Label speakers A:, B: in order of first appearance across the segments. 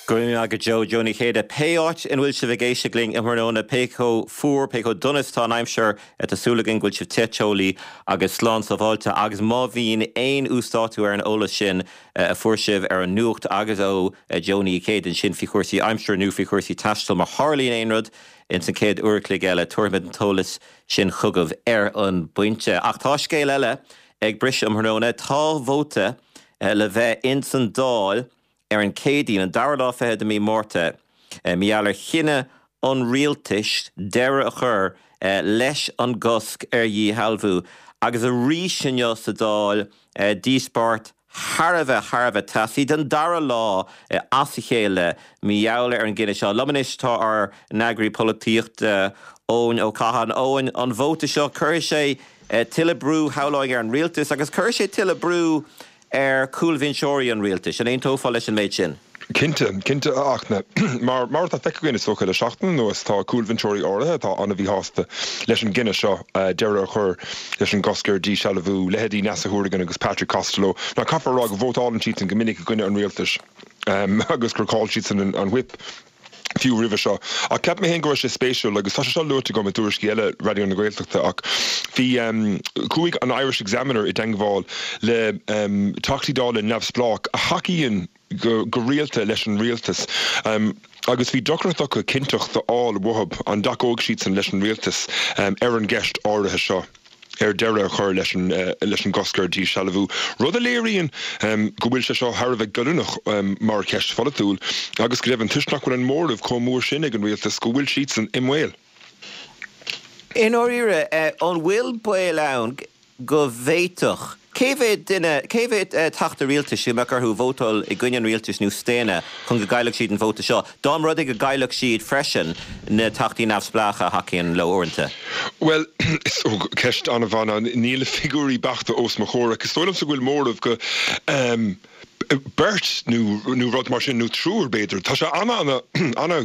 A: Go raibh maith agat Joe, Joe Ní Chéide. Pé áit ina bhfuil sibh ag éisteacht linn um thráthnóna, pé chomh fuar, pé chomh dona is atá an aimsir, tá súil againn go bhfuil sibh te teolaí agus slán sábháilte agus má bhíonn aon uasdátú ar an eolas sin a fuair sibh ar an nuacht agus ó Joe Ní Chéide ansin faoi chúrsaí aimsire nó faoi chúrsaí taistil, má tharlaíonn aon rud ins an chéad uair a chloig eile, tabharfaimid an t-eolas sin chugaibh ar an bpointe. Ach tá scéal eile ag briseadh um thráthnóna. Tá vóta le bheith ins an Dáil ar an Chéadaoin, an dara lá fichead de mí Márta, mar gheall ar chinneadh an rialtais deireadh a chur leis an gcosc ar dhíshealbhú. Agus arís inniu sa Dáil, díospóireacht thar a bheith, thar a bheith teasaí, don dara lá as a chéile mar gheall ar an gcinneadh seo. Liom anois tá ár n-eagraí polaitíochta, Eoin Ó Catháin. Eoin, an vóta seo, cuirfidh sé tuilleadh brú, shamhlóinn, ar an rialtas agus cuirfidh sé tuilleadh brú ar chúlbhinseoirí an rialtais. An aontófá leis an méid sin?
B: Cinnte, cinnte a Fhachtna. Mar, mar atá feicthe againn is dócha le seachtain anuas, tá cúlbhinseoirí áirithe atá an-mhíshásta leis an gcinneadh seo deireadh a chur leis an gcosc ar dhíshealbhú, leithéidí Neasa Hourigan agus Patrick Costello. Now caithfear a rá go vótálann siadsan go minic i gcoinne an rialtais agus gur chaill siadsan an whip. fiú roimhe seo. Ach cheap mé féin go raibh sé spéisiúil, agus tá sé seo luaite agam i dtuairiscí eile Raidió na Gaeltachta, ach bhí, chuaigh an Irish Examiner i dteangmháil le Teachtaí Dála neamhspleách a thacaíonn go go rialta leis an rialtas agus bhí deacracht acu cinnteacht a fháil uathu an dtacóidh siadsan leis an rialtas ar an gceist áirithe seo. ar deireadh a chur leis an leis an gcosc ar dhíshealbhú, rud a léiríonn go bhfuil sé seo thar a bheith goilliúnach mar cheist pholaitiúil agus go deimhin, toisc nach bhfuil an móramh chomh mór sin ag an rialtas, go bhfuil siadsan i mbaol.
A: I ndáiríre, an bhfuil baol ann go bhféadfadh Cé mhéad duine, cé mhéad teachta rialtais a mbeadh orthu vótáil i gcoinne an rialtais nó staonadh chun go gcaillfeadh siad an vóta seo, dá mba rud é go gcaillfeadh siad freisin na teachtaí neamhspleácha a thacaíonn leo uaireanta?
B: Bhuel, is ceist an-mhaith. Níl na figiúirí beachta os mo chomhair ach is dóigh liomsa go bhfuil móramh go beirt nó nó rud mar sin, nó triúr b'fhéidir. Tá sé ana ana ana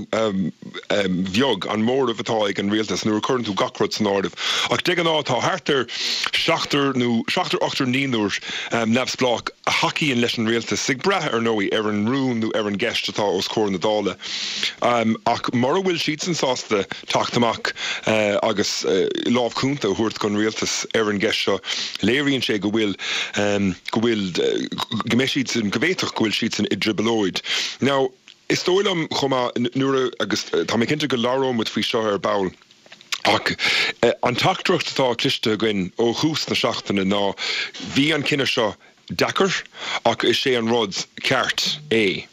B: bheag an móramh atá ag an rialtas nuair a chuireann tú gach rud san áireamh. Ach de ghnáth tá thart ar seachtar nó seachtar, ochtar, naonúr neamhspleách a thacaíonn leis an rialtas, ag brath, ar ndóigh, ar an rún nó ar an gceist atá os comhair na Dála. Ach mura bhfuil siadsan sásta teacht amach agus lámh chúnta a thabhairt don rialtas ar an gceist seo, léiríonn sé go bhfuil, go bhfuil, go mbeidh siadsan, go bhféadfadh go bhfuil siadsan i dtrioblóid. Now, is dóigh liom chomh maith, nuair a, agus tá mé cinnte go labhróidh muid faoi seo ar ball, ach an teachtaireacht atá cloiste againn ó thús na seachtaine ná bhí an cinneadh seo deacair ach is é an rud ceart é.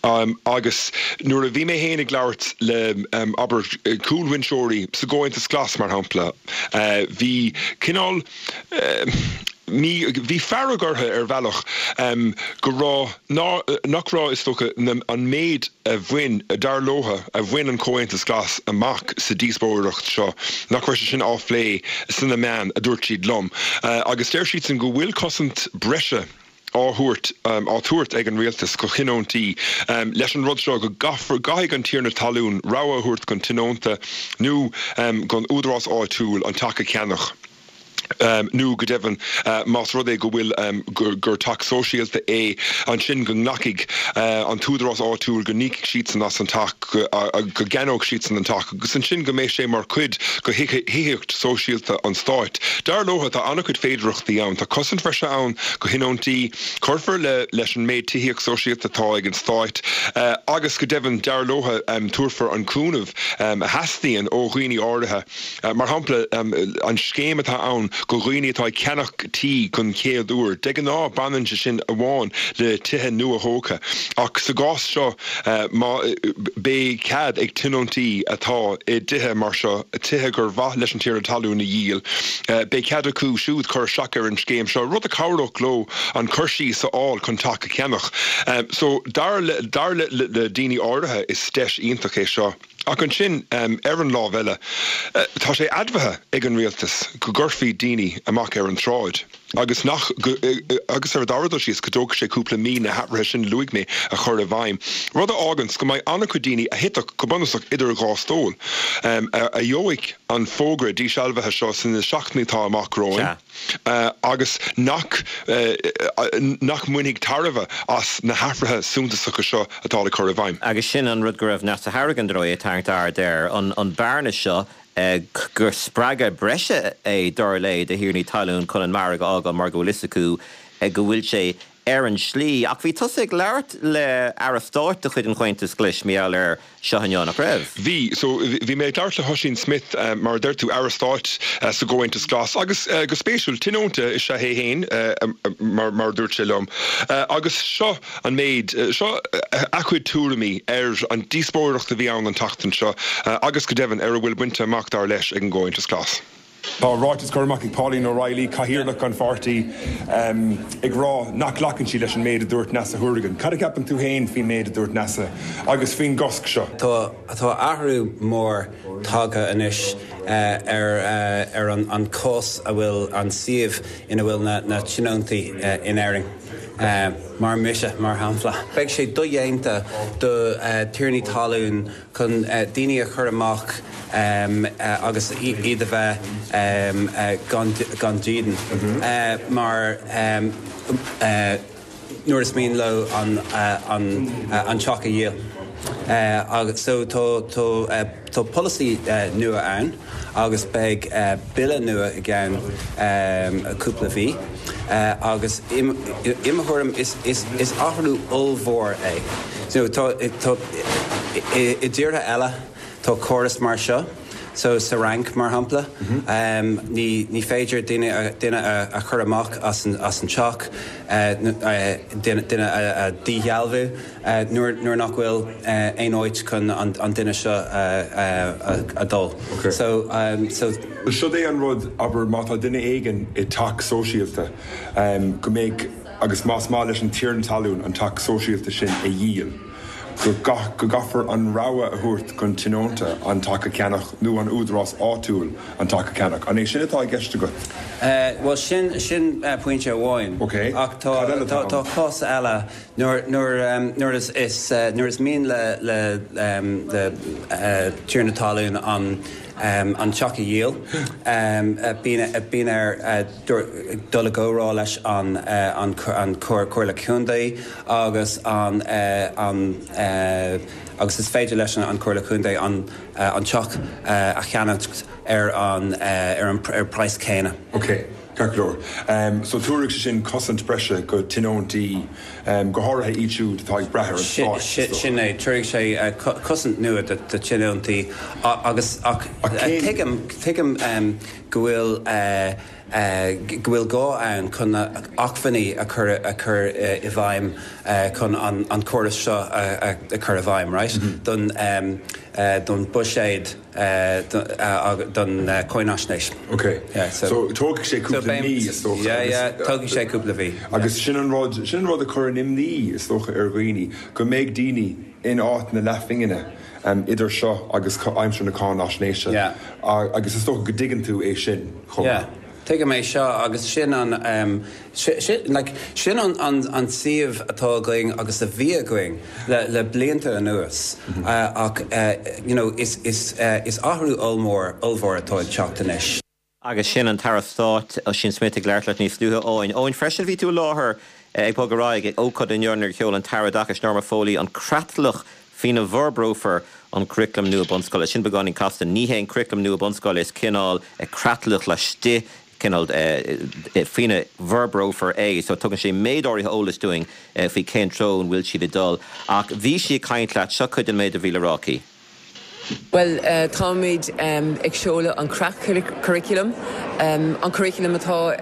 B: Agus nuair a bhí mé féin ag labhairt le, abair, cúlbhinseoirí sa gComhaontas Glas, mar shampla, bhí cineál, mí, bhí fearg orthu ar bhealach go raibh, ná, nach raibh, is dócha, na, an méid a bhain, dar leo, a bhain an Comhaontas Glas amach sa díospóireacht seo, nach raibh sé sin á phlé sna meáin, a dúirt siad liom. Agus deir siadsan go bhfuil cosaint breise á thabhairt, á tabhairt ag an rialtas do thionóntaí leis an rud seo, go gcaithfear, gcaithfidh an tiarna talún rogha a thabhairt don tionónta nó don údarás áitiúil an teach a cheannach. nó go deimhin más rud é go bhfuil gur teach sóisialta é, ansin go nglacfaidh an t-údarás áitiúil go n-íocfaidh siadsan as an teach, go gceannóidh siadsan an teach agus ansin go mbeidh sé mar chuid de thithíocht sóisialta an stáit. Dar leo, tá an-chuid féidearthachtaí ann. Tá cosaint bhreise ann do thionóntaí, cuirfear leis an méid tithíocht sóisialta atá ag an stáit agus go deimhin, dar leo, tabharfar an cúnamh a theastaíonn ó dhaoine áirithe. Mar shampla, an scéim atá ann do dhaoine atá ag ceannach tí don chéad uair, de ghnáth baineann sé sin amháin le tithe nua-thógtha, ach sa gcás seo má beidh cead ag tionóntaí atá i dtithe mar seo, tithe gur mhaith leis an tiarna talún a dhíol, beidh cead acu siúd cur isteach ar an scéim seo, rud a chabhródh leo an cur síos a fháil chun teach a cheannach. So, dar le daoine áirithe, is deis iontach é seo. Ach ansin, ar an lámh eile, tá sé admhaithe ag an rialtas go gcuirfí daoine amach ar an tsráid. Agus nach, agus ar an dara dul síos, go dtógfaidh sé cúpla mí na hathruithe sin a luaigh mé a chur i bhfeidhm, rud a fháganns go mbeidh an-chuid daoine a thitfeadh go bunúsach idir dhá stól, a gheobhaidh an fógra dísealbhaithe seo sna seachtainí atá amach romhainn agus nach, nach mbainfidh tairbhe as na hathruithe suntasacha seo atá le cur i bhfeidhm.
A: Agus sin an rud go raibh Neasa Hourigan, dar ndóigh, ag tarraingt aird air, an bearna seo gur spreagadh breise é, dar léi, do thiarnaí talún chun an margadh a fhágáil mar go bhfuil fhios acu go bhfuil sé ar an slí. Ach bhí tusa ag labhairt le Aire Stáit de chuid an Chomhaontais Ghlais mar gheall air seo inniu, nach raibh?
B: Bhí. So, bhí mé ag labhairt le hOisín Smith, mar a deir tú, Aire Stáit sa gComhaontas Glas agus, go spéisiúil, tionónta is ea é féin, mar a dúirt sé liom. Agus seo. an méid seo a chuid tuairimí ar an díospóireacht a bhí ann an tseachtain seo agus go deimhin ar a bhfuil bainte amach, dar leis, ag an gComhaontas Glas. Tá ráiteas curtha amach ag Pauline O'Reilly, cathaoirleach an pháirtí, ag rá nach nglacann sí leis an méid a dúirt Neasa Hourigan. Cad a cheapann tú féin faoin méid a dúirt Neasa agus faoin gcosc seo?
C: Tá athrú mór tagtha anois ar ar an cás a bhfuil an suíomh ina bhfuil na tionóntaí in Éirinn. Mar mise, mar shampla. Beidh sé dodhéanta do thiarnaí talún chun daoine a chur amach agus iad a bheith gan dídean mar nuair is mian leo an teach a dhíol. So tá polasaí nua ann agus beidh bille nua i gceann cúpla mhí agus i mo thuairim is athrú ollmhór é. So tá i dtíortha eile tá córas mar seo, so sa Fhrainc mar shampla ní féidir duine a chur amach as an teach, duine a dhíshealbhú. Nuair nach bhfuil aon áit chun an duine seo a dhul. So, so.
B: Siod é an rud, abair, má tá duine éigin i dteach sóisialta, go mbeidh, agus más maith leis an tiarna talún an teach sóisialta sin a dhíol, go go gcaithfear an rogha a thabhairt don tionónta an teach a cheannach nó an údarás áitiúil an teach a cheannach. An é sin atá i gceist agat?
C: Bhuel, sin, sin pointe amháin.
B: Ok.
C: Ach tá,
B: Cad eile atá
C: tá
B: ann?
C: cás eile Nuair nuair is nuair is mian le le le tiarna talún an an teach a dhíol, bíonn bíonn air dul i gcomhrá leis an an an Comhairle Contae agus an an agus is féidir leis an Comhairle Contae an an teach a cheannacht ar an ar an ar praghas céanna.
B: Ok. Ceart go leor. So tabharfaidh sé sin cosaint breise go tionóntaí, go háirithe iad siúd atá ag brath ar an stát, is
C: dócha. Sin é. Tabharfaidh sé cosaint nua do tionóntaí agus ach tuigim, tuigim go bhfuil, go bhfuil gá ann chun na acmhainní a chur, a chur i bhfeidhm chun an córas seo a chur i bhfeidhm, right? Don, don buiséad. don cháinaisnéis.
B: Ok. So tógfaidh sé cúpla mí, is dócha.
C: Yeah, yeah, tógfaidh sé cúpla mhí.
B: Agus sin an rud, sin an rud a chuireann imní, is dócha, ar dhaoine, go mbeidh daoine in áit na leathphingine idir seo agus aimsir na cáinaisnéise.
C: Yeah.
B: Agus is dócha go dtuigeann tú é sin chomh maith.
C: Yeah. Tuigim é seo agus sin an, like, sin an an suíomh atá againn agus a bhí againn le le blianta anuas ach you know is is is athrú ollmhór ollmhór atá ag teacht anois.
A: Agus sin an tAire Stáit Ossian Smyth ag labhairt leat níos luaithe, Eoin. Eoin, freisin bhí tú i láthair ag Bog ar Aghaidh ag ócáid inniu nuair a sheol an tAire Oideachais Norma Foley an creatlach faoina bhforbrófar an curaclam nua bunscoile. Sin beagáinín casta. Ní hé an curaclam nua bunscoile, is cineál creatlach laistigh, cineál faoina bhforbrófar é. So tugann sé méid áirithe eolais dúinn faoi cén treo an bhfuil siad ag dul. Ach bhí sí ag caint leat, seo cuid den méid a bhí le rá aici.
D: Bhuel, táimid ag seoladh an creat-churaclam, an curaclam atá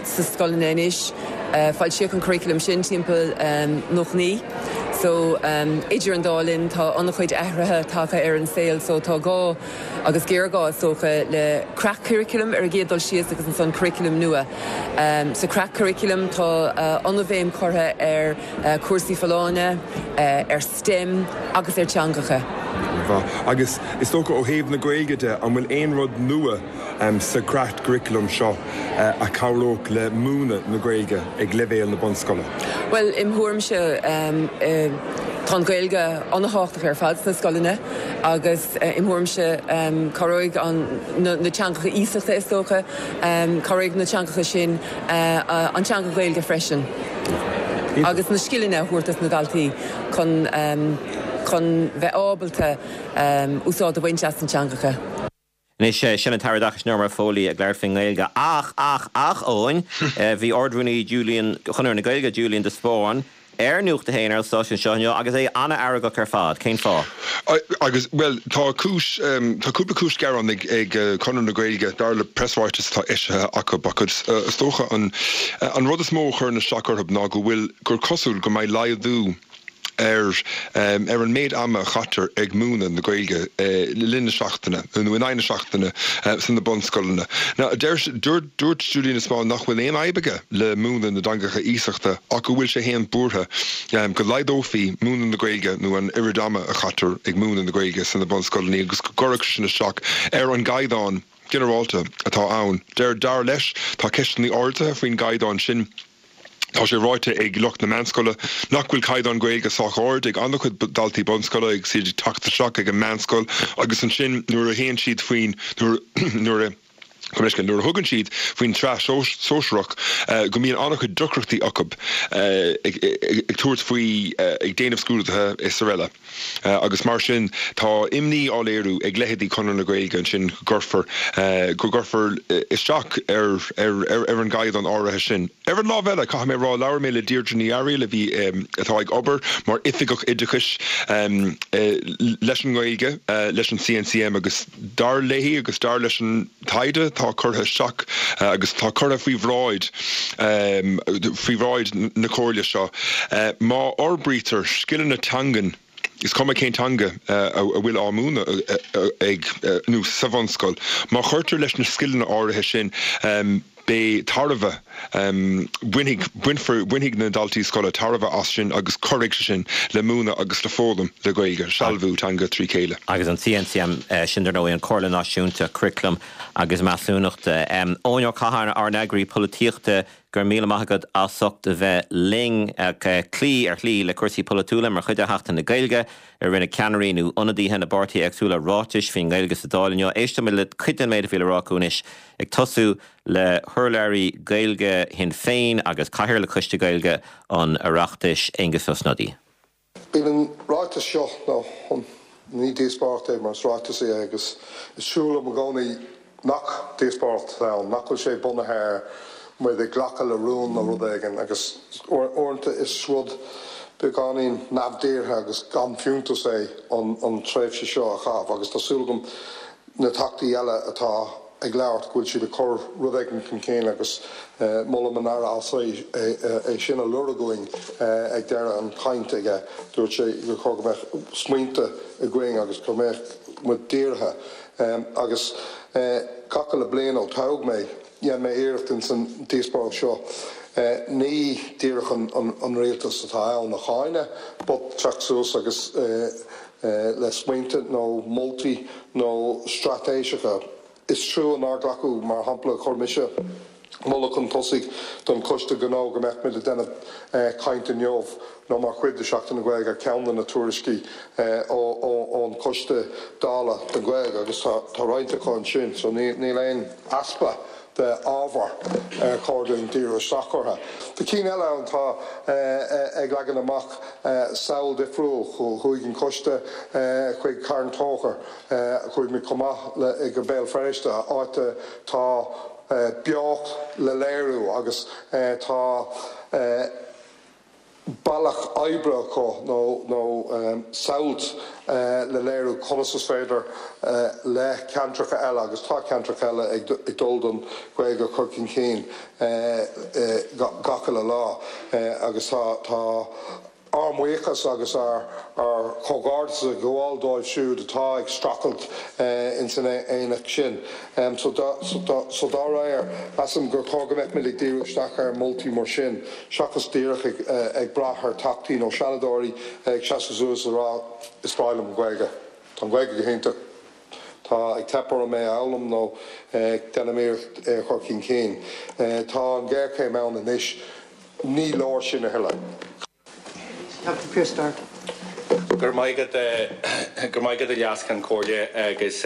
D: sa scoileanna anois. Foilsíodh an curaclam sin timpeall 99. So, idir an dá linn, tá an-chuid athruithe tagtha ar an saol so tá gá, agus géarghá is dócha, le creat-churaclam ar an gcéad dul síos agus ansan curaclam nua. Sa creat-churaclam tá an-bhéim curtha ar chúrsaí folláine, ar STEM agus ar teangacha.
B: An-mhaith. Agus is dócha ó thaobh na Gaeilge de, an bhfuil aon rud nua sa chreatchuraclam seo a chabhródh le múineadh na Gaeilge ag leibhéal na bunscoile?
D: Bhuel, im thuairimse, tá an Ghaeilge an-thábhachtach ar fad sna scoileanna agus im thuairimse cabhróidh na teangacha iasachta is dócha, cabhróidh na teangacha sin an teanga Ghaeilge freisin agus na scileanna a thabhairt dos na daltaí chun chun bheith ábalta úsáid a bhaint as na teangacha.
A: Anois, sin an tAire Oideachais Norma Foley ag labhairt faoin nGaeilge. Ach, ach, ach, Eoin, bhí Ard-Rúnaí Julian, Chonradh na Gaeilge, Julian de Spáinn, ar Nuacht a hAon ar an stáisiún seo inniu agus é an-fheargach ar fad. Cén fáth?
B: Agus, bhuel, tá cúis, tá cúpla cúis gearáin ag, ag Conradh na Gaeilge, dar le preasráiteas atá eisithe acu, ach is dócha an, an rud is mó a chuireann isteach orthu ná go bhfuil, gur cosúil go mbeidh laghdú ar ar an méid ama a chaitear ag múineadh na Gaeilge le linn na seachtaine, nó in aghaidh na seachtaine, sna bunscoileanna. Now, deir, dúirt, dúirt Julian de Spáinn nach bhfuil aon fhadhb aige le múineadh na dteangacha iasachta ach go bhfuil sé fhéin buartha go laghdófaí múineadh na Gaeilge nó an oiread ama a chaitear ag múineadh na Gaeilge sna bunscoileanna agus go gcuirfeadh sé sin isteach ar an gcaighdeán ginearálta atá ann. Deir, dar leis, tá ceisteanna ardaithe faoin gcaighdeán sin. Tá sé ráite ag lucht na meánscoile nach bhfuil caighdeán Gaeilge sách ard ag an-chuid daltaí bunscoile agus iad ag teacht isteach ag an meánscoil agus ansin nuair a théann siad faoin nuair a nuair a thugann siad faoin tsraith sóisearach go mbíonn an-chuid deacrachtaí acu ag tabhairt faoi ag déanamh scrúduithe is araile. Agus mar sin, tá imní á léiriú ag leithéidí Chonradh na Gaeilge ansin go gcuirfear, go gcuirfear isteach ar, ar, ar an gcaighdeán áirithe sin. Ar an lámh eile, caithfidh mé a rá, labhair mé le Deirdre Ní Fhearaíl a bhí, atá ag obair mar Oifigeach Oideachais leis an nGaeilge leis an CNCM agus dar léi agus dar leis an taighde atá curtha isteach agus atá curtha faoi bhráid faoi bhráid na Comhairle seo, má fhorbraítear scileanna teangan, is cuma cén teanga a bhfuil á múineadh ag nó sa bhunscoil, má chuirtear leis na scileanna áirithe sin, beidh tairbhe, bainfidh, bainfear, bainfidh na daltaí scoile tairbhe as sin agus cuirfidh sé sin le múineadh agus le foghlaim le Gaeilge, sealbhú teanga trí chéile.
A: Agus an CNCM, sin dar ndóigh an Comhairle Náisiúnta Curaclaim agus Measúnachta. Eoin Ó Catháin, ár n-eagraí polaitíochta, go raibh míle maith agat as ucht a bheith linn. Cloí ar shlí le cúrsaí polaitiúla mar chuid de Sheachtain na Gaeilge. Rinne ceannairí nó ionadaithe na bpáirtithe éagsúla ráitis faoin nGaeilge sa Dáil inniu. Éistfimid le cuid den méid a bhí le rá acu anois. Ag tosú le hurlabhraí Gaeilge Shinn Féin agus Cathaoirleach Choiste Gaeilge an Oireachtais, Aengus Ó Snodaigh.
E: Bíonn an ráiteas seo, nó ní díospóireacht é mar is ráiteas é agus is trua liom i gcónaí nach díospóireacht atá ann, nach bhfuil sé bunaithe ar muid ag glacadh le rún nó rud éigin agus uaireanta is rud beagáinín neamhdhírthe agus gan fiúntas é an tréimhse seo a chaitheamh agus tá súil agam na Teachtaí eile atá ag labhairt go bhfuil siad ag cur rud éigin chun cinn agus molaim an Aire as é sin a lorg uainn ag deireadh an chaint aige. Dúirt sé gur chóir go mbeadh smaointe againn agus go mbeadh muid dírithe. Agus gach uile bliain ó toghadh mé, dhein mé iarracht ins an díospóireacht seo ní díreach an rialtas atá ann a cháineadh but teacht suas agus le smaointe nó moltaí nó straitéiseacha. Is trua nár glacadh, mar shampla, chuir mise moladh chun tosaigh don Choiste Gnó go mbeadh muid ag déanamh caint inniu nó mar chuid de Sheachtain na Gaeilge ar cheann de na tuairiscí ón Choiste Dála don Ghaeilge agus tá roinnt acu ansin so níl aon easpa de ábhar ar chóir dúinn díriú isteach orthu. Tá cinn eile ann atá ag leagan amach samhail difriúil. Chuaigh an coiste chuig Carn Tóchair, chuaigh muid chomh maith le go Béal Feirste, áit atá beocht le léiriú agus tá bealach oibre acu nó samhailt le léiriú conas is féidir le ceantracha eile, agus tá ceantracha eile ag dul don Ghaeilge a chur chun cinn gach uile lá agus tá ár mbuíochas agus ár chomhghairdeas ag gabháil dóibh siúd atá ag streachailt ins an aonach sin. So dá réir, measaim gur chóir go mbeadh muid ag díriú isteach ar mholtaí mar sin seachas díreach ag brath ar Theachtaí nó Seanadóirí ag seasamh suas ag rá is breá liom an Ghaeilge. Tá an Ghaeilge go hiontach. Tá ag teip orm é a fhoghlaim nó déanaim iarracht é a chur chun cinn. Tá an ghéarchéim ann anois. Ní leor sin a thuilleadh.
F: Teachta Pearse Doherty.
G: Go raibh maith agat, go raibh maith agat a Leas-Cheann Comhairle agus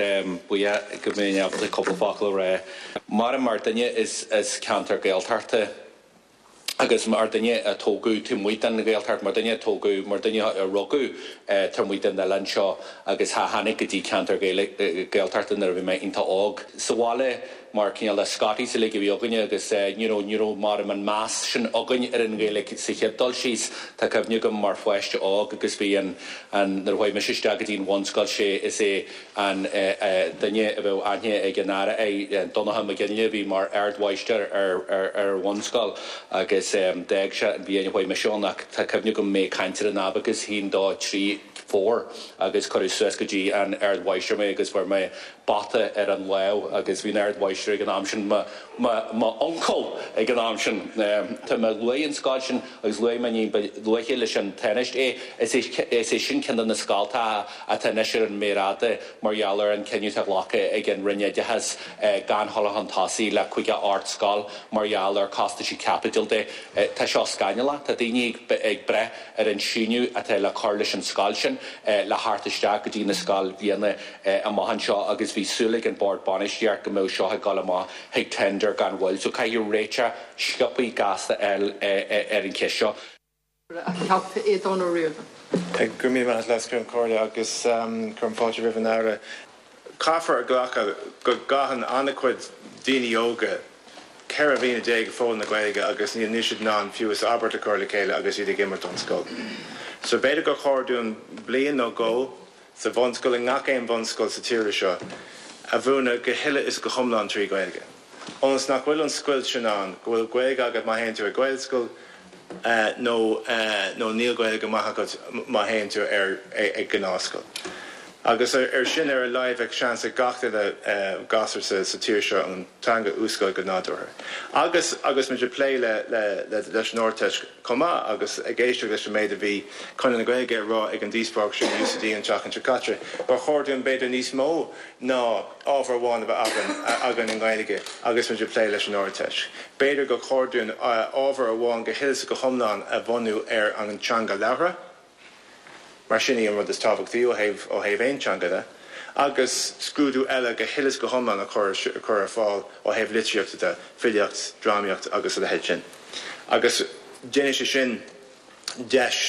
G: buíoch go mbeinn ábalta cúpla focal a rá. Mar mar duine as ceantar Gaeltachta agus mar duine a tógadh taobh amuigh den Ghaeltacht, mar duine a tógadh, mar duine a rugadh taobh amuigh den oileán seo agus a tháinig go dtí ceantar Gaeltachta nuair a bhí mé iontach óg. Sa bhaile mar cineál de Scotties uilig a bhí againne agus you know ní raibh mar an meas sin againn ar an Ghaeilge sa chéad dul síos. Tá cuimhne agam mar pháiste óg agus bhí an, an, nuair a chuaigh mise isteach go dtí an bhunscoil sé is é an duine a bheadh aithne ag an Aire air, Donncha Mac Fhionnghaile a bhí mar ardmháistir ar ar an bhunscoil agus d'fhág sé an bhliain a chuaigh mise ann ach tá cuimhne agam mé ag caint ar an abacus, haon, dó, trí, four agus cuireadh suas go dtí an ardmháistir mé agus fuair mé bata ar an lámh agus bhí an ardmháistir ag an am sin, mo, mo uncail ag an am sin. Tá mé luaigh an scoil sin agus luaigh mé ní ba luaithe leis an Tánaiste é. Is é, is é sin ceann de na scoltacha atá anois ar an méar fhada mar gheall ar an cinneadh atá glactha ag an Roinn Oideachais gan dhul chun tosaigh le 58 scoil mar gheall ar costaisí caipitil de. Tá seo scannalach. Tá daoine ag, ag brath ar an síneadh atá le cur leis an scoil sin le theacht isteach go dtí na scoilbhliana amach anseo agus bhí súil ag an Bord Bainistíocht go mbeadh seo ag dul amach chuig tender gan mhoill. So caithfidh réiteach sciobthaí gasta a fháil ar an cheist seo.
F: A Theachta Aodhán Ó Ríordáin.
H: Go raibh míle maith agat, Leas-Cheann Comhairle, agus cuirim fáilte roimh an Aire. Caithfear a ghlacadh go gcaitheann an-chuid daoine óga 14 mhí ag foghlaim na Gaeilge agus níl siad in ann fiú is abairt a chur le chéile agus iad ag imirt don scoil. So b'fhéidir gur chóir dúinn bliain nó dhó sa bhunscoil, i ngach aon bhunscoil sa tír seo, a mhúineadh go huile is go hiomlán trí Ghaeilge. Ionas nach bhfuil an scoilt sin ann, go bhfuil Gaeilge agat má théann tú ag Gaelscoil nó nó níl Gaeilge maith agat má théann tú ar ag gnáthscoil. Agus ar sin ar a laghad bheadh seans ag gach duine gasúr sa sa tír seo an teanga a úsáid go nádúrtha. Agus agus muid ag plé le le leis an Ardteist chomh maith agus ag éisteacht leis an méid a bhí Conradh na Gaeilge a rá ag an díospóireacht sin i UCD an tseachtain seo caite, gur chóir dúinn b'fhéidir níos mó ná ábhar amháin a bheith againn againn i nGaeilge agus muid ag plé leis an Ardteist. B'fhéidir gur chóir dúinn ábhar amháin go huile is go hiomlán a bhunú ar an teanga labhartha. mar sin í an rud is tábhachtaí ó thaobh ó thaobh aon teanga de, agus scrúdú eile go huile is go hiomlán a chur a chur ar fáil ó thaobh litríochta de, filíocht, drámaíocht agus a leithéid sin. Agus déanfaidh sé sin deis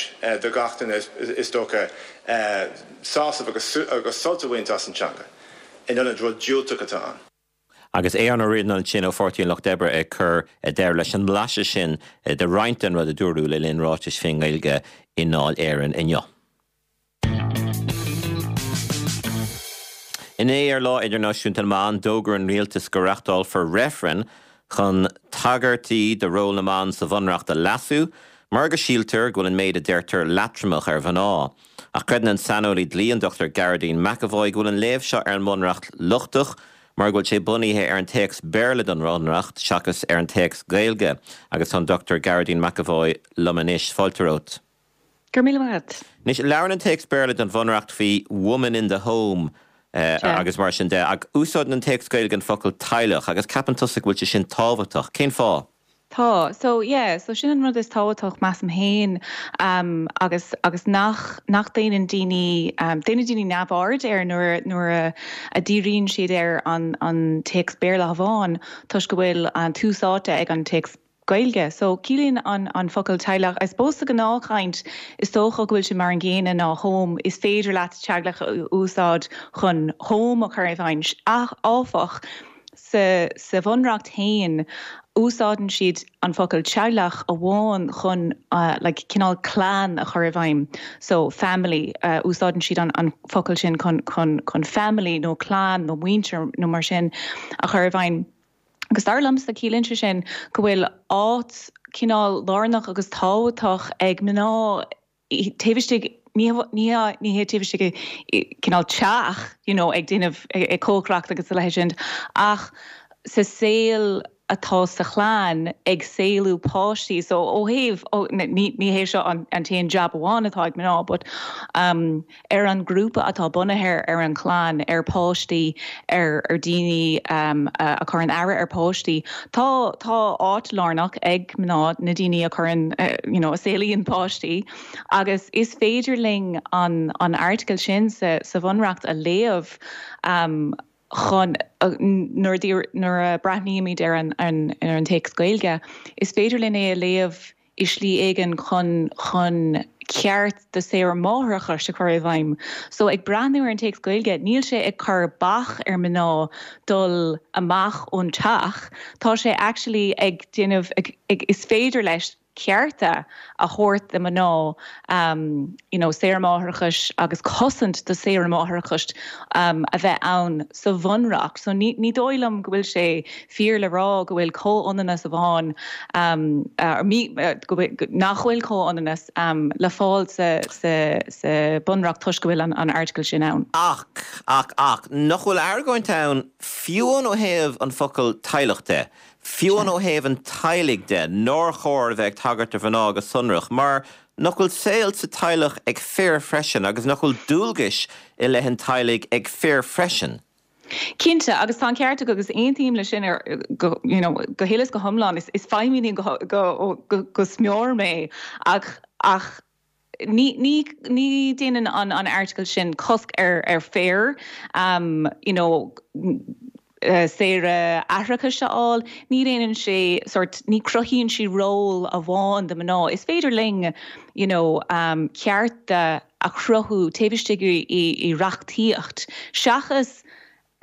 H: do gach duine is dócha sásamh agus agus sult a bhaint as an teanga in ionad rud diúltach atá ann.
A: Agus Aodhán Ó Ríordáin ansin ó Pháirtí an Lucht Oibre ag cur deireadh leis an mblaiseadh sin de roinnt den rud a dúradh le linn ráitis faoin nGaeilge i nDáil Éireann inniu. Inné ar Lá Idirnáisiúnta na mBan, d'fhógair an rialtas go reachtálfar reifreann chun tagairtí do ról na mban sa Bhunreacht a leasú mar go síltear go bhfuil an méid a deirtear leatromach ar mhná. Ach creideann an saineolaí dlí an Dr Gearóidín McEvoy go bhfuil an léamh seo ar an mBunreacht lochtach mar go bhfuil sé bunaithe ar an téacs Béarla don Bhunreacht seachas ar an téacs Gaeilge. Agus tá an Dr Gearóidín McEvoy liom anois. Fáilte romhat.
I: Go raibh míle maith agat.
A: Anois, labhrann an téacs Béarla don Bhunreacht faoi woman in the home agus mar sin de, ach úsáideann an téacs Gaeilge an focal teaghlach agus ceapann tusa go bhfuil sé sin tábhachtach. Cén fáth?
I: Tá. So, yeah, so sin an rud is tábhachtach, measaim féin, agus, agus nach, nach déanann daoine, déanann daoine neamhaird air nuair, nuair a, a díríonn siad ar an, an téacs Béarla amháin toisc go bhfuil an tús áite ag an téacs Gaeilge. So, ciallaíonn an, an focal teaghlach, I suppose sa ghnáthchaint is dócha go bhfuil sé mar an gcéanna ná home, is féidir leat teaghlach a úsáid chun home a chur i bhfeidhm, ach, áfach, Sa sa Bhunreacht féin, úsáideann siad an focal teaghlach amháin chun like cineál clann a chur i bhfeidhm. So family, úsáideann siad an an focal sin chun chun chun family nó clann nó muintir nó mar sin a chur i bhfeidhm. Agus dar liomsa, ciallaíonn sé sin go bhfuil áit cineál lárnach agus tábhachtach ag mná taobh istigh, ní ní hé taobh istigh i cineál teach, you know, ag déanamh, ag cócaireacht agus a leithéid sin, ach sa saol. atá sa chlann ag saolú páistí so ó thaobh ní ní hé seo an an t-aon jab amháin atá ag mná but um ar an grúpa atá bunaithe ar an chlann ar páistí ar ar daoine um a chuireann aire ar páistí tá tá áit lárnach ag mná na daoine a chuireann you know a saolaíonn páistí agus is féidir linn an an airteagal sin sa sa bhunreacht a léamh um chun, nuair a breathnaímid ar an ar an téacs Gaeilge, is féidir linn é a léamh i slí éigin chun chun ceart do saoire máithreachais a chur i bhfeidhm. So ag breathnú ar an téacs Gaeilge, níl sé ag cur bac ar mná dul amach ón teach, tá sé actually ag déanamh, ag, is féidir leis cearta a thabhairt do mná you know saoire máithreachais agus cosaint do saoire máithreachais a bheith ann sa bhunreacht. So ní ní dóigh liom go bhfuil sé fíor le rá go bhfuil comhionannas amháin go bhfuil nach bhfuil comhionannas le fáil sa sa sa bunreacht toisc go bhfuil an an airteagal sin ann.
A: Ach, ach, ach, nach bhfuil argóint ann fiú amháin ó thaobh an focal teaghlach de? Fiú amháin ó thaobh an teaghlaigh de, nár chóir a bheith ag tagairt do mhná go sonrach, mar nach bhfuil saol sa teaghlach ag fir freisin agus nach bhfuil dualgais i leith an teaghlaigh ag fir freisin?
I: Cinnte, agus tá an ceart agat agus aontaím leis sin ar go you know go huile is go hiomlán. Is is feiminí go go go go smior mé ach ach ní ní ní déanann an an airteagal sin cosc ar ar fir you know saoire aithreachais a fháil. Ní dhéanann sé sort ní cruthaíonn sí ról amháin do mná. Is féidir linn you know cearta a chruthú taobh istigh i i reachtaíocht seachas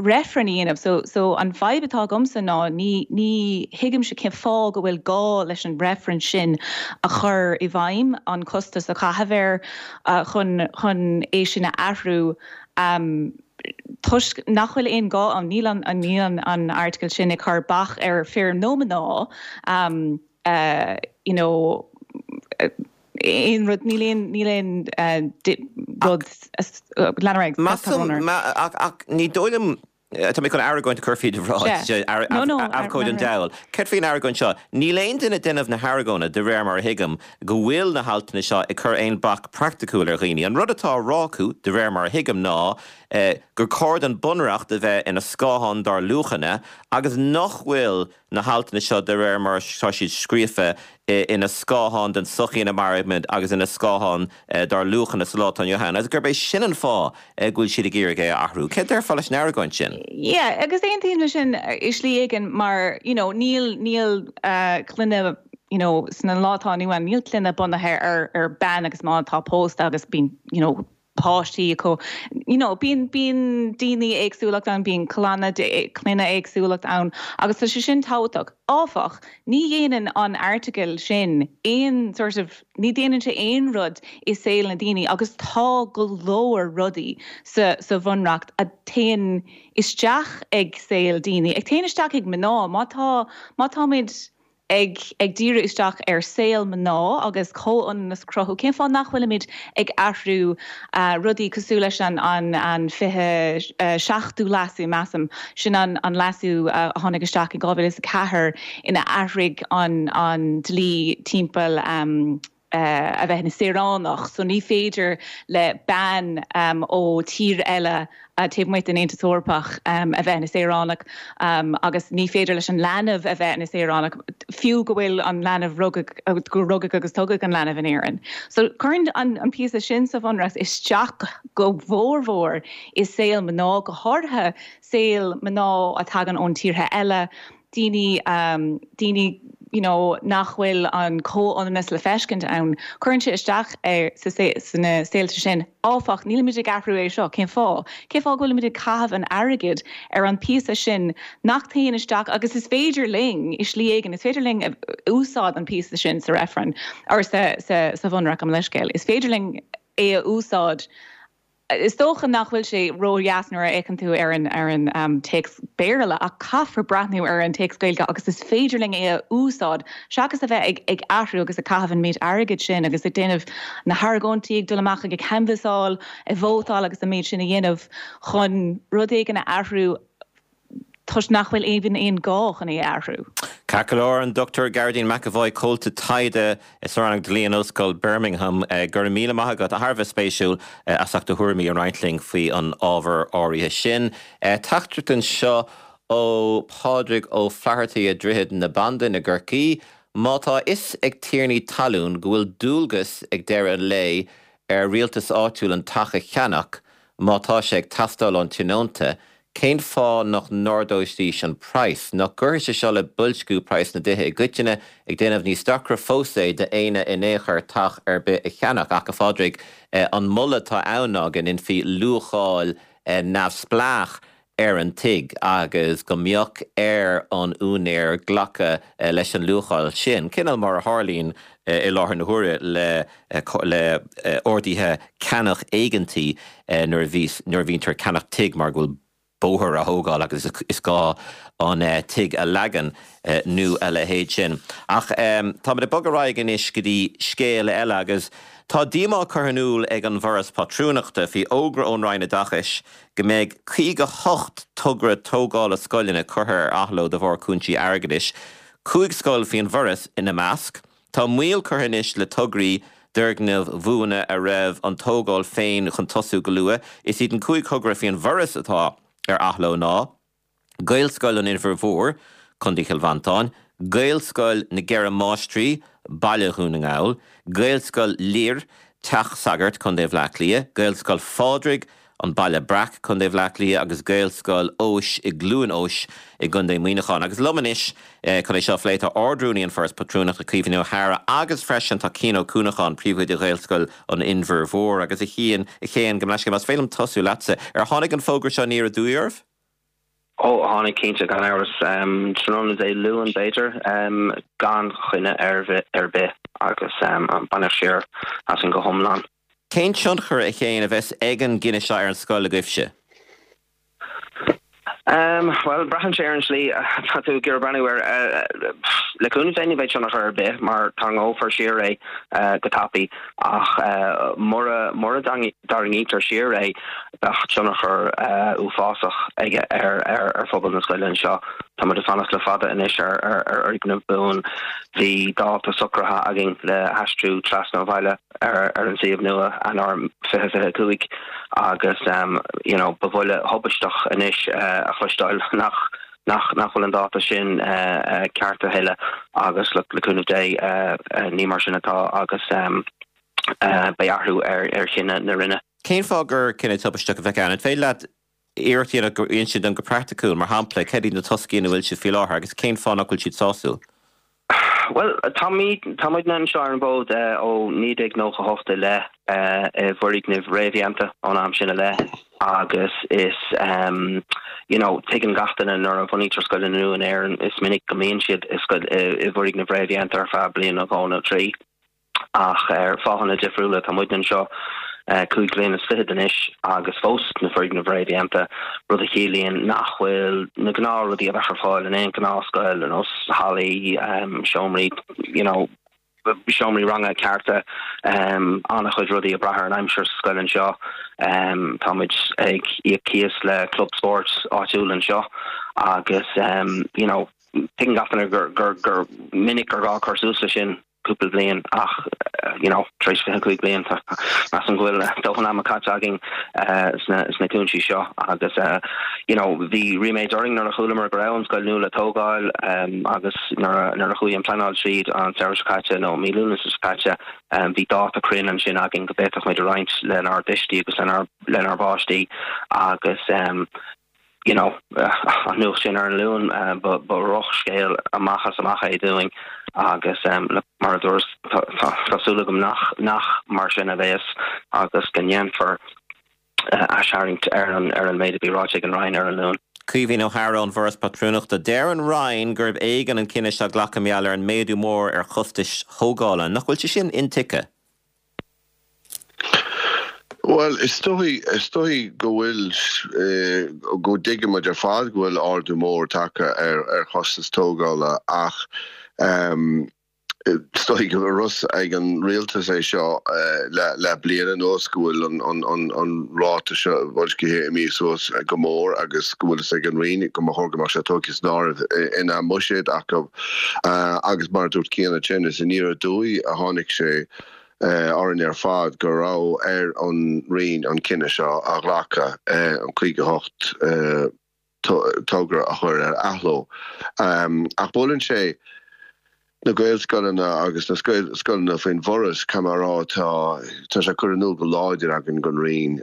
I: reifreann a dhéanamh. So, so an fadhb atá agamsa ná ní, ní thuigimse cén fáth go bhfuil gá leis an reifreann sin a chur i bhfeidhm, an costas a chaitheamh air chun, chun é sin a athrú toisc nach bhfuil aon gá ann. Níl an, níl an, an airteagal sin ag cur bac ar fir nó mná you know, aon rud, níl aon, níl aon rud, lean ar aghaidh,
A: Measaim, ach, ach ní dóigh liom, tá mé chun argóint a chur faoi do bhráid, abhcóide an diabhail. Céard faoin argóint seo? Níl aon duine ag déanamh na hargóna, de réir mar a thuigim, go bhfuil na haltanna seo ag cur aon bac praiticiúil ar dhaoine. An rud atá á rá acu, de réir mar a thuigim, ná gur chóir don Bunreacht a bheith ina scáthán dár luachanna agus nach bhfuil na haltanna seo de réir mar atá siad scríofa ina scáthán den tsochaí ina mairimid agus ina scáthán dár luachanna sa lá atá inniu ann agus gurb é sin an fáth go bhfuil siad ag iarraidh é a athrú. Céard déarfá leis an argóint sin?
I: Yeah, agus aontaím leis sin i slí éigin mar, you know, níl, níl clainne, you know, sna lá atá inniu ann, níl clainne bunaithe ar, ar bean agus mná atá pósta agus bíonn, you know, páistí acu. You know, bíonn, bíonn daoine éagsúlacht ann, bíonn clanna, clainne éagsúlacht ann agus tá sé sin tábhachtach. Áfach, ní dhéanann an airteagal sin aon sort of, ní dhéanann sé aon rud i saol na daoine agus tá go leor rudaí sa, sa bhunreacht a théann isteach ag saol daoine, ag téann isteach ag mná. Má tá, má táimid ag ag díriú isteach ar saol mná agus comhionannas a chruthú, cén fáth nach bhfuilimid ag athrú rudaí cosúil leis an an an 27ú leasú, measaim, sin an an leasú a tháinig isteach in 2004 ina athraigh an an dlí timpeall a bheith ina saoránach so ní féidir le bean ó tír eile taobh amuigh den Aontas Eorpach a bheith ina saoránach agus ní féidir leis an leanbh a bheith ina saoránach fiú go bhfuil an leanbh rugadh go rugadh agus tógadh an leanbh in Éirinn. So cuireann an an píosa sin sa bhunreacht isteach go mhórmhór i saol mná, go háirithe saol mná a tagann ón tíortha eile, daoine, daoine you know nach bhfuil an comhionannas le feiscint ann. Cuireann sé isteach ar sa sna saolta sin. Áfach, nílimid ag athrú é seo. Cén fáth? Cén fáth go bhfuilimid ag caitheamh an airgid ar an píosa sin nach téann isteach agus is féidir linn, i slí éigin, is féidir linn úsáid an píosa sin sa reifreann, or sa sa sa bhunreacht, gabh mo leithscéal. Is féidir linn é a úsáid Is dócha nach bhfuil sé ródheas nuair a fhéachann tú ar an ar an téacs Béarla ach caithfear breathnú ar an téacs Gaeilge agus is féidir linn é a úsáid seachas a bheith ag ag athrú agus ag caitheamh an méid airgid sin agus ag déanamh na hargóintí, ag dul amach ag ag canbhasáil, ag vótáil agus an méid sin a dhéanamh chun rud éigin a athrú. Toisc nach bhfuil even aon gá chun é a athrú.
A: Ceart go leor, an Dr Gearóidín McEvoy, Comhalta Taighde sa Rannóg Dlí in Ollscoil Birmingham, go raibh míle maith agat, thar a bheith spéisiúil, as ucht do thuairimí a roinnt linn faoi an ábhar áirithe sin. Teachtaireacht anseo ó Pádraig Ó Flathartaigh i Droichead na Bandan i gCorcaigh, Má tá a fhios ag tiarnaí talún go bhfuil dualgas ag deireadh an lae ar rialtas áitiúil an teach a cheannach má tá sé ag teastáil ón tionónta, Cén fáth nach n-ardóidís an praghas? Nach gcuirfidh sé seo le boilsciú praghas na dtithe i gcoitinne, ag déanamh níos deacra fós é d'éinne in aon chor teach ar bith a cheannach? Ach, a Phádraig, an moladh atá ann ná go ndéanfaí luacháil neamhspleách ar an tigh agus go mbeadh ar an úinéir glacadh leis an luacháil sin, cineál mar a tharlaíonn i láthair na huaire le le orduithe ceannach éigeantaí nuair a bhíos nuair a bhíontar ag ceannach tigh mar go bhfuil bóthar á thógáil agus is gá an tigh a leagan nó a leithéid sin. Ach táimid ag bogadh ar aghaidh anois go dtí scéal eile agus tá díomá curtha in iúl ag an bhForas Pátrúnachta faoi fhógra ón Roinn Oideachais go mbeidh 58 togra tógála scoileanna curtha ar athló de bharr cúinsí airgeadais, 5 scoil faoin bhForas ina measc. Tá moill curtha anois le tograí d'fhoirgnimh bhuana a raibh an tógáil féin chun tosú go luath. Is iad an 5 thogra faoin bhForas atá ar athló ná, Gaelscoil an Inbhir Mhóir, Co. Chill Mhantáin, Gaelscoil na gCeithre Máistrí, Baile Dhún na nGall, Gaelscoil Lir, Teach Sagard, Co. Bhaile Átha Cliath, Gaelscoil Phádraig, An Baile Breac, Co. Bhaile Átha Cliath agus Gaelscoil Eois i gCluain Eois i gContae Mhuineacháin. Agus liom anois chun é seo a phlé tá Ard-Rúnaí an Foras Patrúnachta, Caoimhín Ó hEadhra agus freisin tá Cian Ó Cuanacháin, Príomhoide Ghaelscoil an Inbhir Mhóir. Agus a Chiain, a Chéin, gabh mo leithscéal, más féidir liom tosú leatsa, ar tháinig an fógra seo aniar aduaidh oraibh?
J: Ó, tháinig cinnte, gan amhras. Tráthnóna Dé Luain, b'fhéidir, gan choinne ar bith agus baineadh siar asainn go hiomlán.
A: Cén tionchar, a Chéin, a bheas ag an gcinneadh seo ar an scoil agaibhse?
J: Bhuel, braitheann sé ar an slí atá tú ag iarraidh breathnú air. Le cúnamh Dé ní bheidh tionchar ar bith mar tarraingeofar siar é go tapaidh ach mura mura dtarraingítear siar é bheadh tionchar uafásach aige ar phobal na scoile anseo. Tá muid ag fanacht le fada anois ar fhoirgneamh buan. Bhí dáta socraithe againn le haistriú trasna an bhaile. ar an suíomh nua, Eanáir 2025, agus you know ba bhuille thubaisteach anois a chloisteáil nach nach nach bhfuil an dáta sin ceart a thuilleadh agus look le cúnamh Dé ní mar sin atá agus beidh athrú ar ar chinneadh na Roinne.
A: Cén fáth gur cinneadh tubaisteach a bheadh ann? An féidir leat iarracht a dhéanamh insint dom go praiticiúil, mar shampla, cad iad na toscaí ina bhfuil sibh faoi láthair agus cén fáth nach bhfuil siad sásúil?
J: Bhuel, táimid, tá muidne anseo ar an bhfód ó 1998 i leith, i bhfoirgnimh réamhdhéanta ón am sin i leith agus is, you know, tuigeann gach duine nuair a bhunaítear scoileanna nua in Éirinn, is minic go mbíonn siad i scoil, i bhfoirgnimh réamhdhéanta ar feadh bliain nó dhó nó trí. Ach ar fáthanna difriúla, tá muidne anseo 25 bliain anois agus fós sna foirgnimh réamhdhéanta, rud a chiallaíonn nach bhfuil na gnáthrudaí a bheadh ar fáil in aon ghnáthscoil, ar nós hallaí, seomraí, you know, seomraí ranga cearta, an-chuid rudaí ag brath ar an aimsir sa scoil anseo. Tá muid ag íoc cíos le club spóirt áitiúil anseo agus, you know, tuigeann gach duine gur, gur, gur minic gur gá cur suas leis sin. cúpla bliain ach you know tar éis 25 bliain tá measaim go bhfuil dóthain ama caite againn sna sna cúinsí seo agus you know bhí ríméad orainn nuair a chualamar go raibh an scoil nua le tógáil agus nuair a nuair a chuaigh an pleanáil tríd an samhradh seo caite nó mí Lúnasa seo caite bhí dáta cruinn ansin againn go bhféadfadh muid a roinnt lenár dtuistí agus lenár lenár bpáistí agus you know, an nuacht sin ar an Luan, ba dhrochscéal amach is amach é dúinn agus mar a dúras, tá súil agam nach nach mar sin a bheas agus go ndéanfar aistharraingt ar an ar an méid a bhí ráite ag an Roinn ar an Luan.
A: Caoimhín Ó hEadhra ón bhForas Pátrúnachta. Deir an Roinn gurb éigean an cinneadh seo a ghlacadh mar gheall ar an méadú mór ar chostais thógála. Nach bhfuil sé sin intuigthe?
K: Bhuel, is dóigh, is dóigh go bhfuil, go dtuigeann muid ar fad go bhfuil ardú mór tagtha ar ar chostas tógála ach. Is dóigh go raibh a fhios ag an rialtas é seo le bliain anuas go bhfuil an ráta seo boilscithe imithe suas go mór agus go bhfuil fhios ag an Roinn go mba chóir go mbeadh sé tógtha san áireamh ina mbuiséad acu agus mar a dúirt Cian ansin is aniar aduaidh a tháinig sé orainn ar fad go raibh ar an Roinn an cinneadh seo a ghlacadh, an 58. togra a chur ar athló. Ach buaileann sé na Gaelscoileanna agus na scoileanna faoin bhForas, caithfidh mé a rá, tá tá sé curtha in iúl go láidir againn don Roinn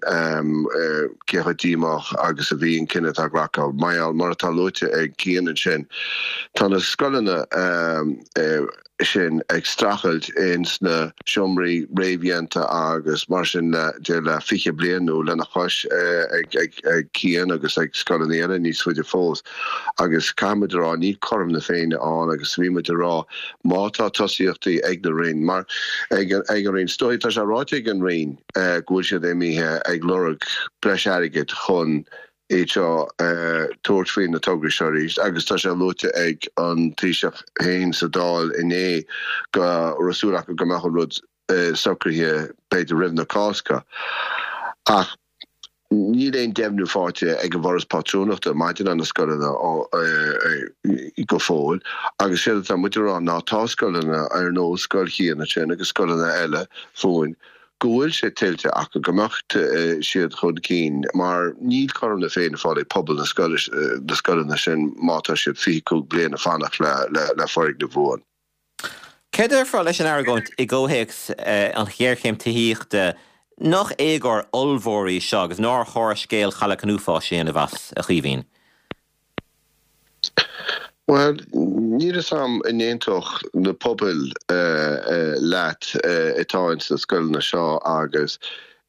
K: cé chomh díomách agus a bhí an cinneadh atá glactha. Mar gheall, mar atá luaite ag Cian ansin, tá na scoileanna sin ag streachailt ins na seomraí réamhdhéanta agus mar sin de le 20 bliain nó lena chois ag Cian agus ag scoileanna eile níos faide fós agus caithfidh muid a rá níl cothrom na Féinne ann agus bhí muid a rá má tá tosaíochtaí ag na Roinn mar ag an Roinn is dóigh tá sé ráite ag an Roinn go bhfuil siad imithe ag lorg breis airgid chun iad seo tabhairt faoi na tograí seo arís agus tá sé luaite ag an Taoiseach féin sa Dáil inné go raibh súil acu go mbeadh an rud socraithe b'fhéidir roimh na Cásca. Ach níl aon deimhniú faighte ag an bhForas Pátrúnachta maidir le na scoileanna go fóill agus séard atá muid a rá ná tá scoileanna ar nós Scoil Chian ansin agus scoileanna eile fúinn go bhfuil sé tuillte acu go mbeadh siad chun cinn mar níl cothrom na Féinne fáil ag pobal na scoileanna sin má tá siad 25 bliain ag fanacht le foirgneamh buan.
A: Céard a déarfá leis an argóint i gcomhthéacs an ghéarchéim tithíochta nach éagóir ollmhór í seo agus nár chóir scéal Chailleach an Uafáis a dhéanamh as, a Chaoimhín?
K: Bhuel, níl fhios a'm an n-aontódh na pobail leat atá ins na scoileanna seo agus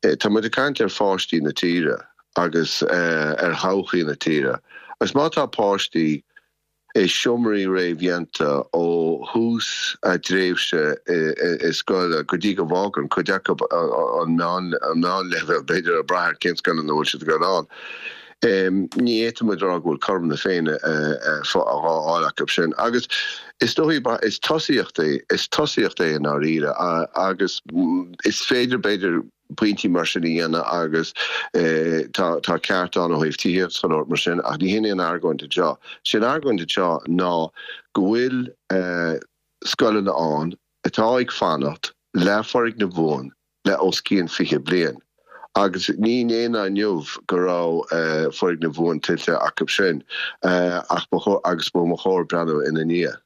K: tá muid ag caint ar pháistí na tíre agus ar thodhchaí na tíre agus má tá páistí i seomraí réamhdhéanta ó thús a dtréimhse i scoil go dtí go bhfágann cuid acu an meánleibhéal, b'fhéidir, ag brath ar cén scoil ina bhfuil siad ag dul ann. Ní fhéadfaidh muid a rá go bhfuil cothrom na Féinne á fháil acu sin. Agus is dóigh, is tosaíocht é, is tosaíocht é i ndáiríre agus is féidir, b'fhéidir, pointí mar sin a dhéanamh agus tá tá ceart ann ó thaobh tithíocht is chuile shórt mar sin ach ní hin é an argóint anseo. Sé an argóint anseo ná go bhfuil scoileanna ann atá ag fanacht le foirgneamh buan le os cionn 20 bliain agus ní inné ná inniu go raibh foirgneamh buan tuillte acu sin ach ba chóir agus ba chóir breathnú ina ndiaidh.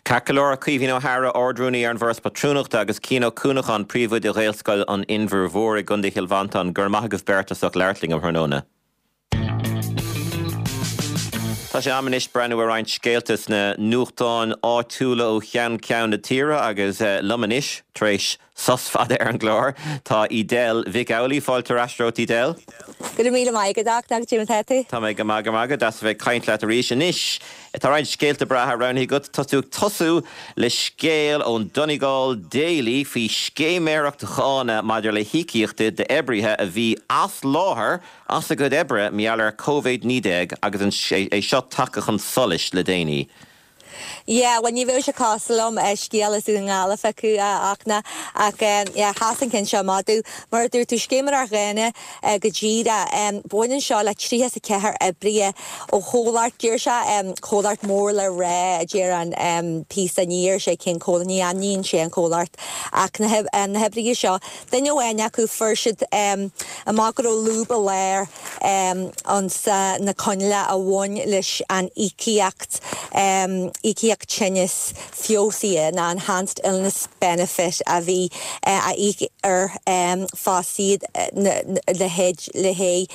A: Ceart go leor, Caoimhín Ó hEadhra, Ard-Rúnaí ar an bhForas Pátrúnachta agus Cian Ó Cuanacháin, Príomhoide Ghaelscoil an Inbhir Mhóir i gContae Chill Mhantáin, go raibh maith agaibh beirt as ucht labhairt linn um thráthnóna. Tá sé am anois breathnú ar roinnt scéalta sna nuachtáin áitiúla ó cheann ceann na tíre agus liom anois, tar éis sos fada ar an gclár, tá Edel Mhic Amhlaigh. Fáilte ar ais romhat, Edel.
L: Go raibh míle maith agat, a Codá mar tá tú?
A: Tá mé go maith, go raibh maith agat. Deas a bheith ag caint leat arís. Anois, tá roinnt scéalta breátha roghnaithe agat. Tá tú ag tosú le scéal ón Donegal Daily faoi scéiméireacht dhána maidir le híocaíochtaí d'oibrithe a bhí as láthair as a gcuid oibre mar gheall ar Covid-19 agus é seo tagtha chun solais le déanaí.
L: Yeah, bhuel ní bheadh sé cosúil liom scéal as Dún na nGall a phiocadh a Fhachtna ach yeah, sheas an ceann seo amach domh. Mar a dúirt tú, scéiméireacht dhána go díreach. Baineann seo le 34 oibrithe ó chomhlacht, deir sé comhlacht mór le rá a deir an píosa, ní deir sé cén comhlacht, ní ainmníonn sé an comhlacht ach na hoibrithe seo, Duine amháin acu, fuair siad amach go raibh lúb i lár ins na coinníollacha a bhain leis an íocaíocht, íocaíocht tinnis feabhsaithe nó enhanced illness benefit a bhí á íoc ar fostaithe le haghaidh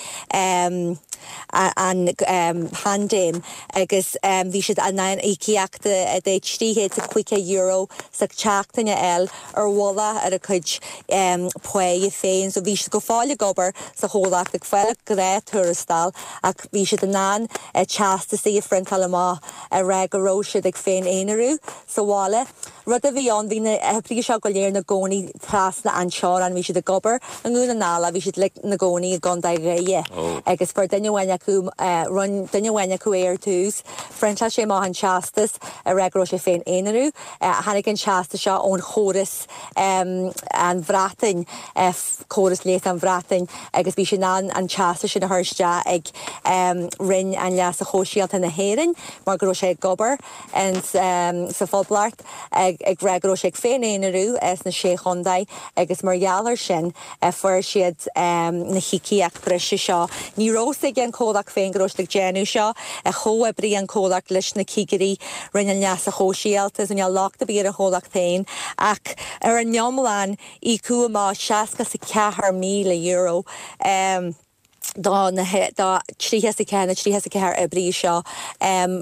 L: an phaindéim agus bhí siad in ann íocaíocht de €350 sa tseachtain a fháil ar mhullach ar a gcuid páighe féin. So bhí siad go fóill ag obair sa chomhlacht, ag fáil gnáth-tuarastal ach bhí siad in ann teastasaí a phriontáil amach a rá go raibh siad ag féin-aonarú sa bhaile. Rud a bhí ann, bhí na hoibrithe seo go léir ina gcónaí trasna an teorainn, bhí siad ag obair i nDún na nGall ach bhí siad uilig ina gcónaí i gContae Dhoire agus fuair duine amháin acu, rinne duine amháin acu é ar tús, phriontáil sé amach an teastas ag rá go raibh sé ag féin-aonarú. Tháinig an teastas seo ón chóras an Bhreatain, córas leighis an Bhreatain agus bhí sé in ann an teastas sin a chur isteach ag Roinn an Leasa Shóisialta na hÉireann mar go raibh sé ag obair. sa Phoblacht ag rá go raibh sé ag féin-aonarú sna Sé Chontae agus mar gheall ar sin fuair siad na híocaíocht breise seo. Ní raibh fhios ag an chomhlacht féin go raibh siad ag déanamh seo. Chomhoibrigh an comhlacht leis na cigirí Roinn an Leasa Shóisialta so níl locht ar bith ar an chomhlacht féin ach ar an iomlán íocadh amach €64,000. do na do 34 na 34 oibrí seo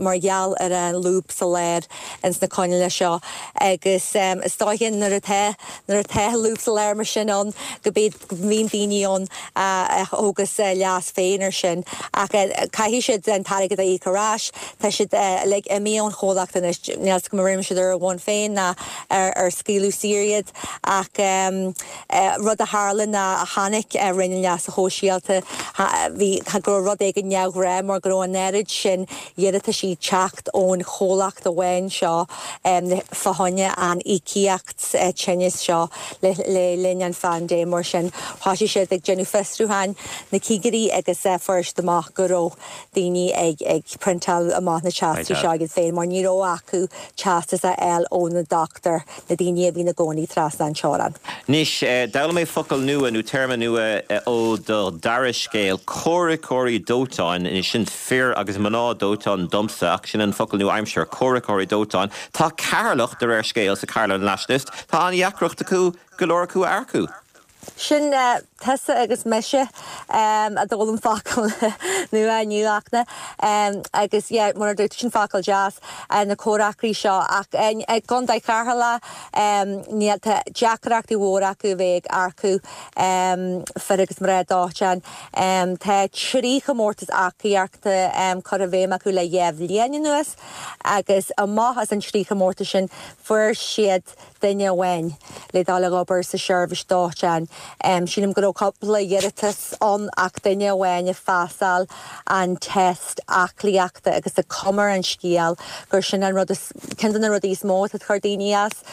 L: mar gheall ar an lúb sa lár ins na coinníollacha seo agus is dóiche nuair atá nuair atá lúb sa lár mar sin ann go mbíonn go mbíonn daoine ann a thógas leas féin ar sin ach caithfidh siad an t-airgead a íoc ar ais. Tá siad uilig imithe ón chomhlacht anois, níl 's agam an rinne siad ar a bhonn féin ná ar ar scaoileadh saor iad ach Rud a tharla ná chonaic Roinn an Leasa Shóisialta bhí go raibh rud éigin neamhghnách mar go raibh an oiread sin iarrataisí ag teacht ón chomhlacht amháin seo fá choinne an íocaíocht tinnis seo le linn an phaindéim. Mar sin thosaigh siad ag déanamh fiosrúcháin, na cigirí, agus fuair siad amach go raibh daoine ag ag priontáil amach na teastais seo iad féin mar ní raibh acu teastas a fháil ó na dochtúir, na daoine a bhí ina gcónaí trasna an teorainn.
A: Anois, d'fhoghlaim mé focal nua nó téarma nua ó do dara scéal, comhraiceoirí dóiteáin. Anois, sin fir agus mná dóiteáin domsa, ach sin an focal nua-aimseartha, comhraiceoirí dóiteáin. Tá Ceatharlach, de réir scéil sa Carlow Nationalist, tá an-dheacracht acu go leor acu a earcú.
L: Sin tusa agus mise a d'fhoghlaim focal nua inniu Fhachtna. Agus yeah, mar a dúirt tú, sin focal deas, na comhraiceoirí seo. Ach i gContae Cheatharlach, níl, tá deacrachtaí mhóra acu a bheith ag earcú fir agus mná dóiteáin. Tá 3 chomórtas earcaíochta curtha i bhfeidhm acu le 2 bhliain anuas agus amach as an 3 chomórtas sin fuair siad duine amháin le dul ag obair sa seirbhís dóiteáin. Sílim go raibh cúpla iarratas ann ach duine amháin a phasáil an test aclaíochta agus tá cuma ar an scéal gur sin an rud is, ceann de na rudaí is mó atá ag cur daoine as,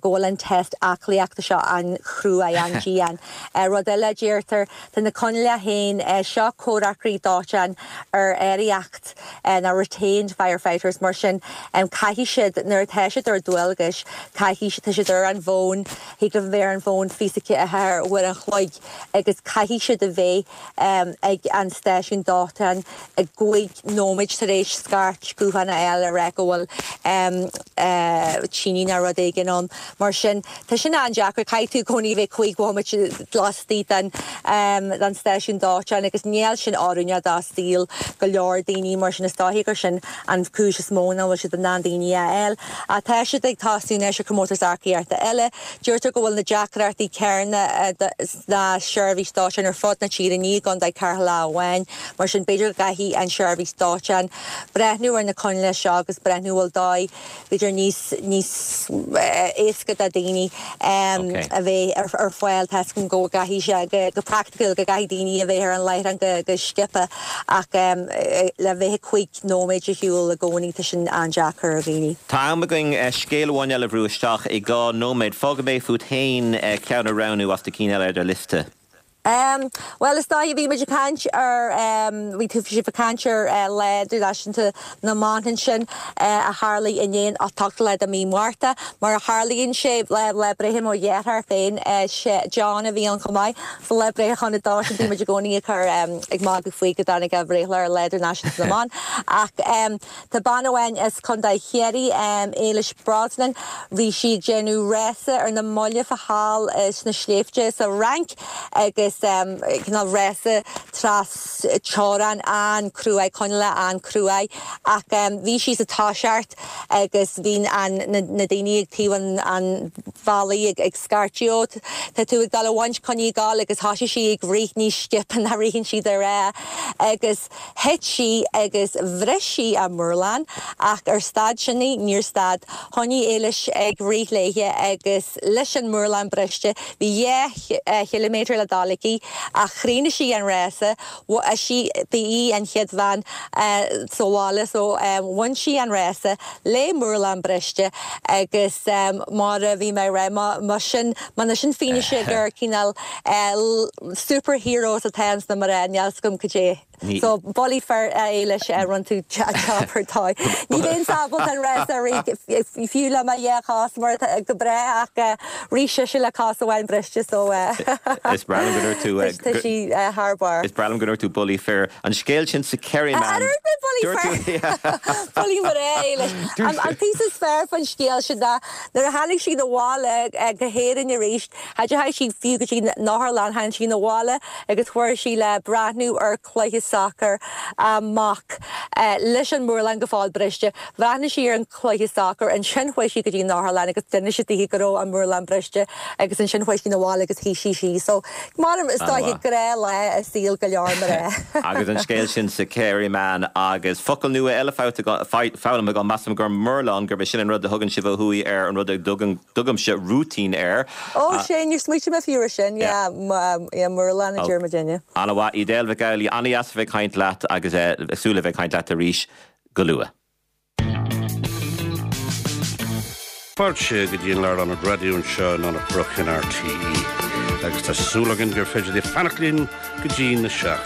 L: go bhfuil an test aclaíochta seo an-chruaidh, an-dian. Rud eile a deirtear, tá na coinníollacha féin, seo comhraiceoirí dóiteáin ar áiríocht, nó retained firefighters, mar sin caithfidh siad, nuair atá siad ar dualgais, caithfidh, tá siad ar an bhfón, thig leo a bheith ar an bhfón 24 uair an chloig agus caithfidh siad a bheith ag an stáisiún dóiteáin i gcúig nóiméid tar éis scairt gutháin a fháil a rá go bhfuil tine nó rud éigin ann. Mar sin, tá sin an-deacair, caithfidh tú i gcónaí a bheith cúig bhomaite laistigh den den stáisiún dóiteáin agus níl sin oiriúnach do saol go leor daoine, mar sin is dóichí gur sin an chúis is mó nach bhfuil siad in ann daoine a fháil. Ach tá siad ag tosnú anois ar chomórtas earcaíochta eile. Deirtear go bhfuil na deacrachtaí céanna sna seirbhís dóiteáin ar fud na tíre, ní i gContae Cheatharlach amháin. Mar sin b'fhéidir go gcaithfidh an tseirbhís dóiteáin breathnú ar na coinníollacha seo agus breathnú an bhfuil dóigh b'fhéidir níos níos éasca do daoine a bheith ar fáil. Tá 'fhios agam go gcaithfidh sé go praiticiúil go gcaithfidh daoine a bheith ar an láithreán go go sciobtha ach le bheith 5 nóiméad ar shiúl i gcónaí tá sin an-deacair ar dhaoine.
A: Tá am againn scéal amháin eile a bhrú isteach i 2 nóiméad. Fágfaidh mé fút féin ceann a roghnú as na cinn eile ar do liosta.
L: Em, bhuel, is dóiche, bhí muid ag caint ar, em, bhí tú, sibh ag caint ar eh, Lá Idirnáisiúnta na mBan ansin eh, a tharlaigh inné an 8ú lá de mhí Márta. Mar a tharlaíonn sé, lá, lá breithe mo dhearthár féin, eh, sé John a bhí ann chomh maith. So lá breithe Chon Dóis, bhí muid i gcónaí ag cur, em, ag magadh faoi go dtáinig a bhreithlá ar Lá Idirnáisiúnta na mBan. Ach, em, Tá bean amháin as Contae Chiarraí, Éilis Brosnan, bhí sí ag déanamh rása ar na mallaibh thall sna sléibhte sa Fhrainc agus. agus cineál rása tras teorainn an-cruaidh, coinníollacha an-cruaidh ach bhí sí sa toiseacht agus bhí an na daoine ag taobh an an bhealaigh ag scairteadh ó tá tú ag dul a bhaint coinnigh ag dul agus thosaigh sí ag rith níos sciobtha ná ritheann siad ar agus thit sí agus bhris sí a murlán ach ar stad sin í? Níor stad. Choinnigh Éilis ag rith léithe agus leis an murlán briste bhí 2 chiliméadar le dul aici ach chríochnaigh sí an rása. Sí ba í an chéad bhean sa bhaile so bhain sí an rása le murlán briste agus mar a bhí mé ag rá má sin má sin fianaise gur cineál super heroes atá ins na mná níl 's agam cad é. So bullaí fir a Éilis rinne tú job ar dóigh. Ní bheinnse ábalta an rása a rith fiú le mo dhá chos mar atá go breá ach rith sise le cos amháin briste so
A: Is breá liom go ndúirt tú
L: tá sí thar barr.
A: Is breá liom go ndúirt tú bullaí fir. An scéal sin sa Kerryman.
L: Ar dúirt mé bullaí fir? Bullaí mná Éilis. An píosa is fearr faoin scéal sin ná nuair a tháinig sí 'na bhaile go hÉirinn arís Cha dteachaigh sí fiú go dtí an otharlann, tháinig sí 'na bhaile agus chuaigh sí le breathnú ar chluiche sacair a mac leis an murlán go fóill briste. Bhreathnaigh sí ar an chluiche sacair, ansin chuaigh sí go dtí an otharlann agus d'inis siad daoithe go raibh an murlán briste agus ansin chuaigh sí 'na bhaile agus shuigh sí síos. So, mar is dóiche gnáthlá i saol go leor mná.
A: Agus an scéal sin sa Kerryman agus focal nua eile foghlamtha agam, measaim gur murlán, gurb é sin an rud a thugann sibh ó thuaidh ar an rud a dtugann Tugaimse rúitín air.
L: Ó, sin, níor smaoitigh mé fiú ar sin, yeah, yeah, murlán a deir muidinne.
A: Ana-mhaith, Edel Mhic Amhlaigh, ana-dheas a bheith ag caint leat agus ag súil le bheith ag caint leat arís go luath.
M: Fáilte go dtí an Lárionad Raidió anseo in Anach Broc in RTÉ agus tá súil againn gur féidir libh fanacht linn go dtí na 7.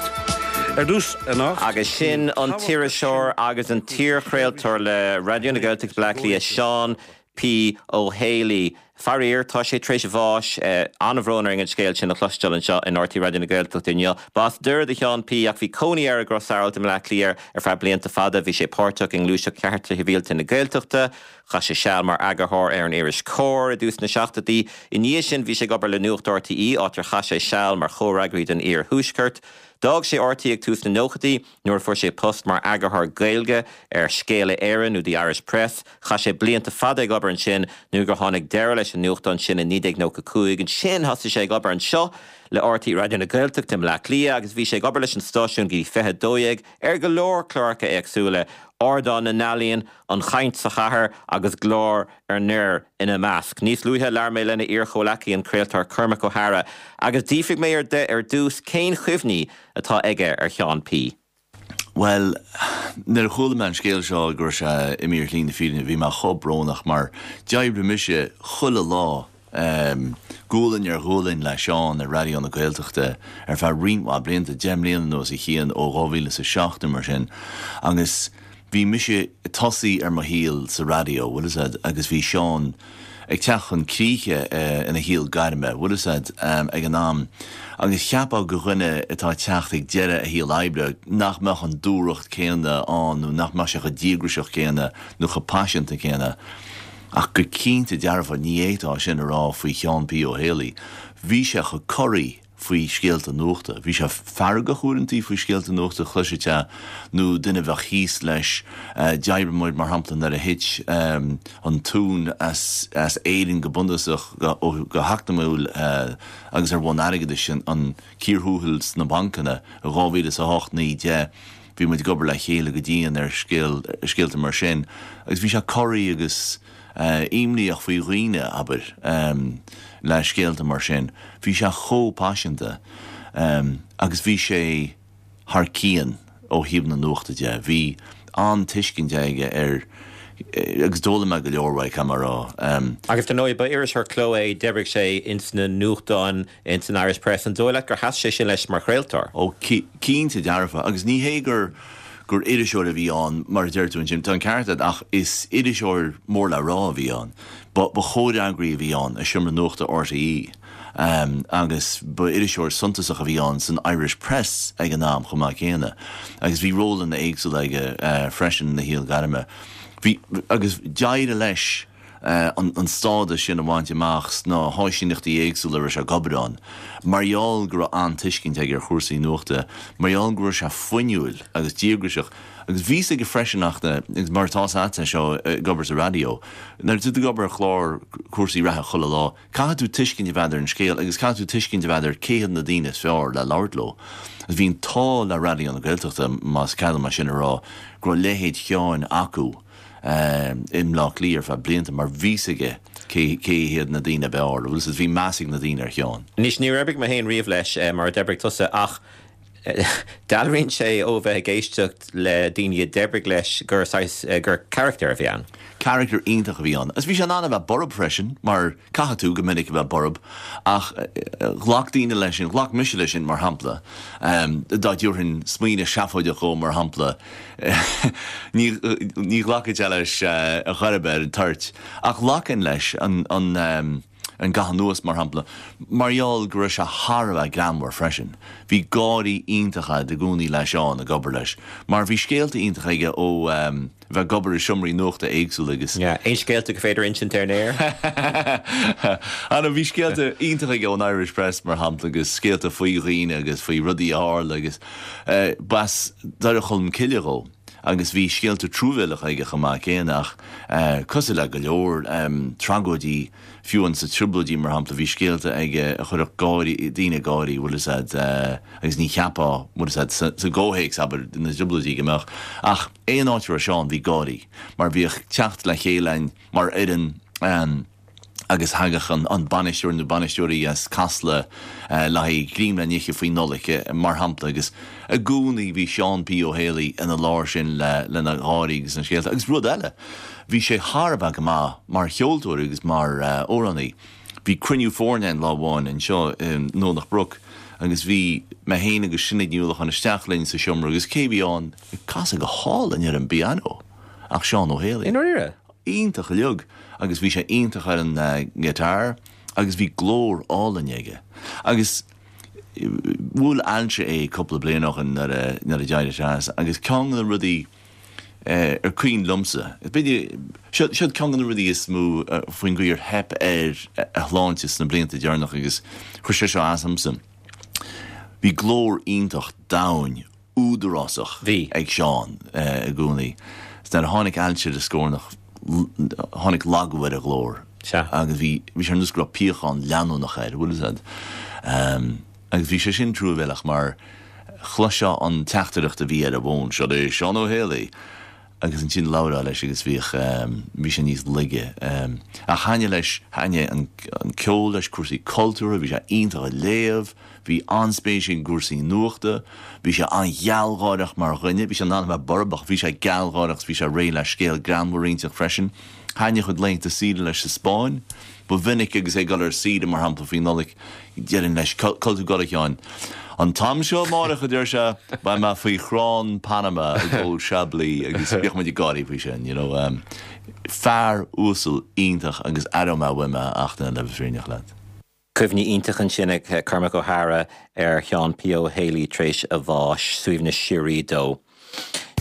M: Ar dtús anocht.
A: Agus sin an t-iriseoir agus an t-iarchraoltóir le Raidió na Gaeltachta Bleá Cliath, Seán P. Ó Héalaí. Faraor, tá sé tar éis bháis. An-bhrón orainn an scéal sin a chloisteáil anseo in RTÉ Raidió na Gaeltachta inniu. B'as Doire do Sheán P. ach bhí cónaí air i gCros Arailt i mBleá Cliath ar feadh blianta fada. Bhí sé páirteach i ngluaiseacht Chearta Shibhialta na Gaeltachta. Chaith sé seal mar eagarthóir ar an iris Comhar i dtús na seachtóidí. I ndiaidh sin bhí sé ag obair le Nuacht RTÉ, áit ar chaith sé seal mar chomhfhreagraí don Iar-Thuaisceart. D'fhág sé RTÉ ag tús na nóchaidí. Nuair a fuair sé post mar eagarthóir Gaeilge ar Scéala Éireann nó The Irish Press, chaith sé blianta fada ag obair ansin nó gur tháinig deireadh leis an nuachtán sin i 1995. Ansin thosaigh sé ag obair anseo le RTÉ Raidió na Gaeltachta i mBleá Cliath agus bhí sé ag obair leis an stáisiún go dtí 2012 ar go leor cláracha éagsúla, Ardán na nEalaíon, An Chaint sa Chathair agus Glór ar nDoire ina measc. Níos luaithe labhair mé lena iar-chomhleacaí an craoltóir Cormac Ó hEadhra agus d'fhiafraigh mé de ar dtús cén chuimhní atá aige ar Sheán P.
N: Bhuel, nuair a chuala mé an scéal seo go raibh sé imithe ar shlí na fírinne, bhí mé chomh brónach mar d'oibrigh mise chuile lá, gualainn ar ghualainn le Seán ar Raidió na Gaeltachta ar feadh roinnt mhaith blianta, 10 mbliana nó os a chionn, ó 2007 nó mar sin, agus bhí mise ag tosaí ar mo shaol sa raidió, bhfuil fhios a'd, agus bhí Seán ag teacht chun críche ina shaol gairme, bhfuil fhios a'd, ag an am. Agus cheapfá go dhuine atá ag teacht ag deireadh a shaol oibre nach mbeadh an dúthracht céanna ann nó nach mbeadh sé chomh díograiseach céanna nó chomh paiseanta céanna. Ach go cinnte dearfa ní fhéadfá sin a rá faoi Sheán P. Ó Héalaí. Bhí sé chomh corraí faoi scéalta nuachta. Bhí sé feargach uaireantaí faoi scéalta nuachta, chloisfeá nó duine a bheadh thíos leis. D'oibrigh muid, mar shampla, nuair a thit an tóin as Éirinn go bunúsach, go heacnamúil agus ar bhonn airgeadais, an cíor thuathail sna bancanna i 2008, 9, 10. Bhí muid ag obair le chéile go dian ar scéalta mar sin agus bhí sé corraí agus. imníoch faoi dhaoine, abair, le scéalta mar sin. Bhí sé chomh paiseanta agus bhí sé thar cionn ó thaobh na nuachta de. Bhí an-tuiscint aige ar, agus d'fhoghlaim mé go leor uaidh, caithfidh mé a rá.
A: Agus dar ndóigh, ba iriseoir cló é, d'oibrigh sé ins na nuachtáin, ins an Irish Press. An dóigh leat gur sheas sé sin leis mar chraoltóir?
N: Ó, cinnte dearfa. Agus ní hé gur gur iriseoir a bhí ann, mar a deir tú ansin, tá an ceart agat, ach is iriseoir mór le rá a bhí ann. Ba ba chomhfhreagraí a bhí ann i Seomra Nuachta RTÉ agus ba iriseoir suntasach a bhí ann san Irish Press ag an am chomh maith céanna. Agus bhí rólanna éagsúla aige freisin ina shaol gairme. Bhí, agus d'éirigh leis. an stádas sin a bhaint amach sna háisíneachtaí éagsúla a raibh sé ag obair ann, mar gheall go raibh an-tuiscint aige ar chúrsaí nuachta, mar gheall go raibh sé fuinniúil agus díograiseach. Agus bhí 's aige freisin ach na, agus mar atá 's agat seo ag obair sa raidió, nuair atá tú ag obair ar chlár cúrsaí reatha chuile lá, caithfidh tú tuiscint a bheith agat ar an scéal agus caithfidh tú tuiscint a bheith agat ar cé hiad na daoine is fearr le labhairt leo. Agus bhí an t-ádh le Raidió na Gaeltachta, más cead dom é sin a rá, go raibh leithéid Sheáin acu. i mBleá Cliath ar feadh blianta mar bhí 's aige cé cé hiad na daoine ab fhearr, bhfuil 's agat, bhí meas ag na daoine ar Sheán.
A: Anois, níor oibrigh mé féin riamh leis mar a d'oibrigh tusa ach dealraíonn sé ó bheith ag éisteacht le daoine a d'oibrigh leis gur saghas, gur carachtar a bhí ann.
N: Carachtar iontach a bhí ann. Agus bhí sé in ann a bheith borb freisin mar caithfidh tú go minic a bheith borb ach ghlac daoine leis sin, ghlac mise leis sin mar shampla, dá dtabharfainn smaoineamh seafóideach dhó mar shampla, Ní ghlacfadh sé leis ar chor ar bith ar an toirt, ach ghlacfainn leis an an gcaitheamh anuas, mar shampla, mar gheall go raibh sé thar a bheith greannmhar freisin. Bhí gáirí iontacha agat i gcónaí le Seán ag obair leis, mar bhí scéalta iontacha aige ó bheith ag obair i seomraí nuachta éagsúla agus.
A: Aon scéalta gur féidir a insint ar an aer?
N: Ana, bhí scéalta iontacha aige ón Irish Press, mar shampla, agus scéalta faoi dhaoine agus faoi rudaí a tharla agus. B'as Doire Cholm Cille dhó agus bhí scéalta truamhéileacha aige chomh maith céanna ach cosúil le go leor tragóidí, fiú amháin sna Trioblóidí mar shampla, bhí scéalta aige a chuirfeadh gáirí, daoine ag gáirí, bhfuil fhios a'd, agus ní cheapfá, bhfuil fhios a'd, sa gcomhthéacs, abair, na dTrioblóidí go mbeadh. Ach aon áit a raibh Seán bhí gáirí mar bhíodh teacht le chéile a'inn mar fhoireann, agus thagadh an bainisteoir nó bainisteoirí as Casla le haghaidh greim le n-ithe faoi Nollaig, mar shampla, agus i gcónaí bhí Seán P. Ó Héalaí ina lár sin lena gháirí agus na scéalta. Agus rud eile, bhí sé thar a bheith go maith mar cheoltóir agus mar amhránaí. Bhí cruinniú foirne ann lá amháin anseo i nDomhnach Broc agus bhí mé féin agus Sinéad Ní Uallacháin isteach linn sa seomra agus cé a bhí ann ag casadh go hálainn ar an bpianó ach Seán Ó Héalaí.
A: I ndáiríre?
N: iontach uilig agus bhí sé iontach ar an ngiotár agus bhí glór álainn aige. Agus bhuail ailse é cúpla bliain ó shin nuair a nuair a d'éirigh sé as agus ceann de na rudaí ar cuimhin liomsa, b'fhéidir, seo seo ceann de na rudaí is mó faoin gcaoi ar theip ar a shláinte sna blianta deireanacha agus chuir sé seo as domsa. Bhí glór iontach domhain údarásach ag Seán i gcónaí. Nuair a tháinig ailse ar a scornach, tháinig lagú ar a ghlór agus bhí sé ar nós go raibh piachán leanúnach air, bhfuil fhios a'd. Agus bhí sé sin truamhéileach mar chloisfeá an teachtaireacht a bhí ar an bhfón, Seo é Seán Ó Héalaí! Agus ansin labhrófá leis agus bhíodh, bhí sé níos laige. Ach thaitnigh leis, thaitnigh an ceol leis, cúrsaí cultúrtha, bhí sé iontach ag léamh, bhí an-spéis aige i gcúrsaí nuachta, bhí sé an-ghealgháireach mar dhuine, bhí sé in ann a bheith borb ach bhí sé gealgháireach 's bhí sé réidh le scéal greannmhar a inseacht freisin. Thaitnigh a chuid laethanta saoire leis sa Spáinn. Ba mhinic agus é ag dul ar saoire, mar shampla, faoi Nollaig, déarfainn leis, Cá bhfuil tú ag dul, a Sheáin? An t-am seo amárach, a deir sé, beidh mé faoi chrann Panama ag ól Chablis agus bhíodh muid ag gáirí faoi sin, you know. Fear uasal iontach agus aireoidh mé uaim é ach le bheith fírinneach leat.
A: Cuimhní iontacha ansin ag Cormac Ó hEadhra ar Sheán P. Ó Héalaí tar éis a bháis. Suaimhneas síoraí dó.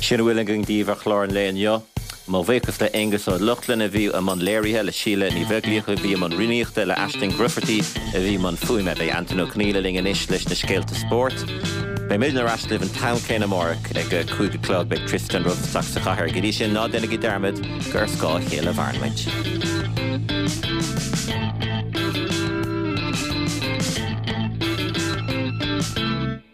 A: Sin a bhfuil againn daoibh ar chlár an lae inniu. Mo bhuíochas le Aonghus Ó Lochlainn a bhí i mbun léirithe, le Síle Ní Bheaglaoich a bhí i mbun rúnaíochta, le Aisling Grufferty a bhí i mbun fuaime. Beidh Antain Ó Conghaile linn anois leis na scéalta spóirt. Beidh muidne ar ais libh an t-am céanna amárach ag a 5 a chlog. Beidh Tristan romhaibh isteach sa chathair. Go dtí sin, ná déanaigí dearmad gur ar scáth a chéile a mhaireann muid.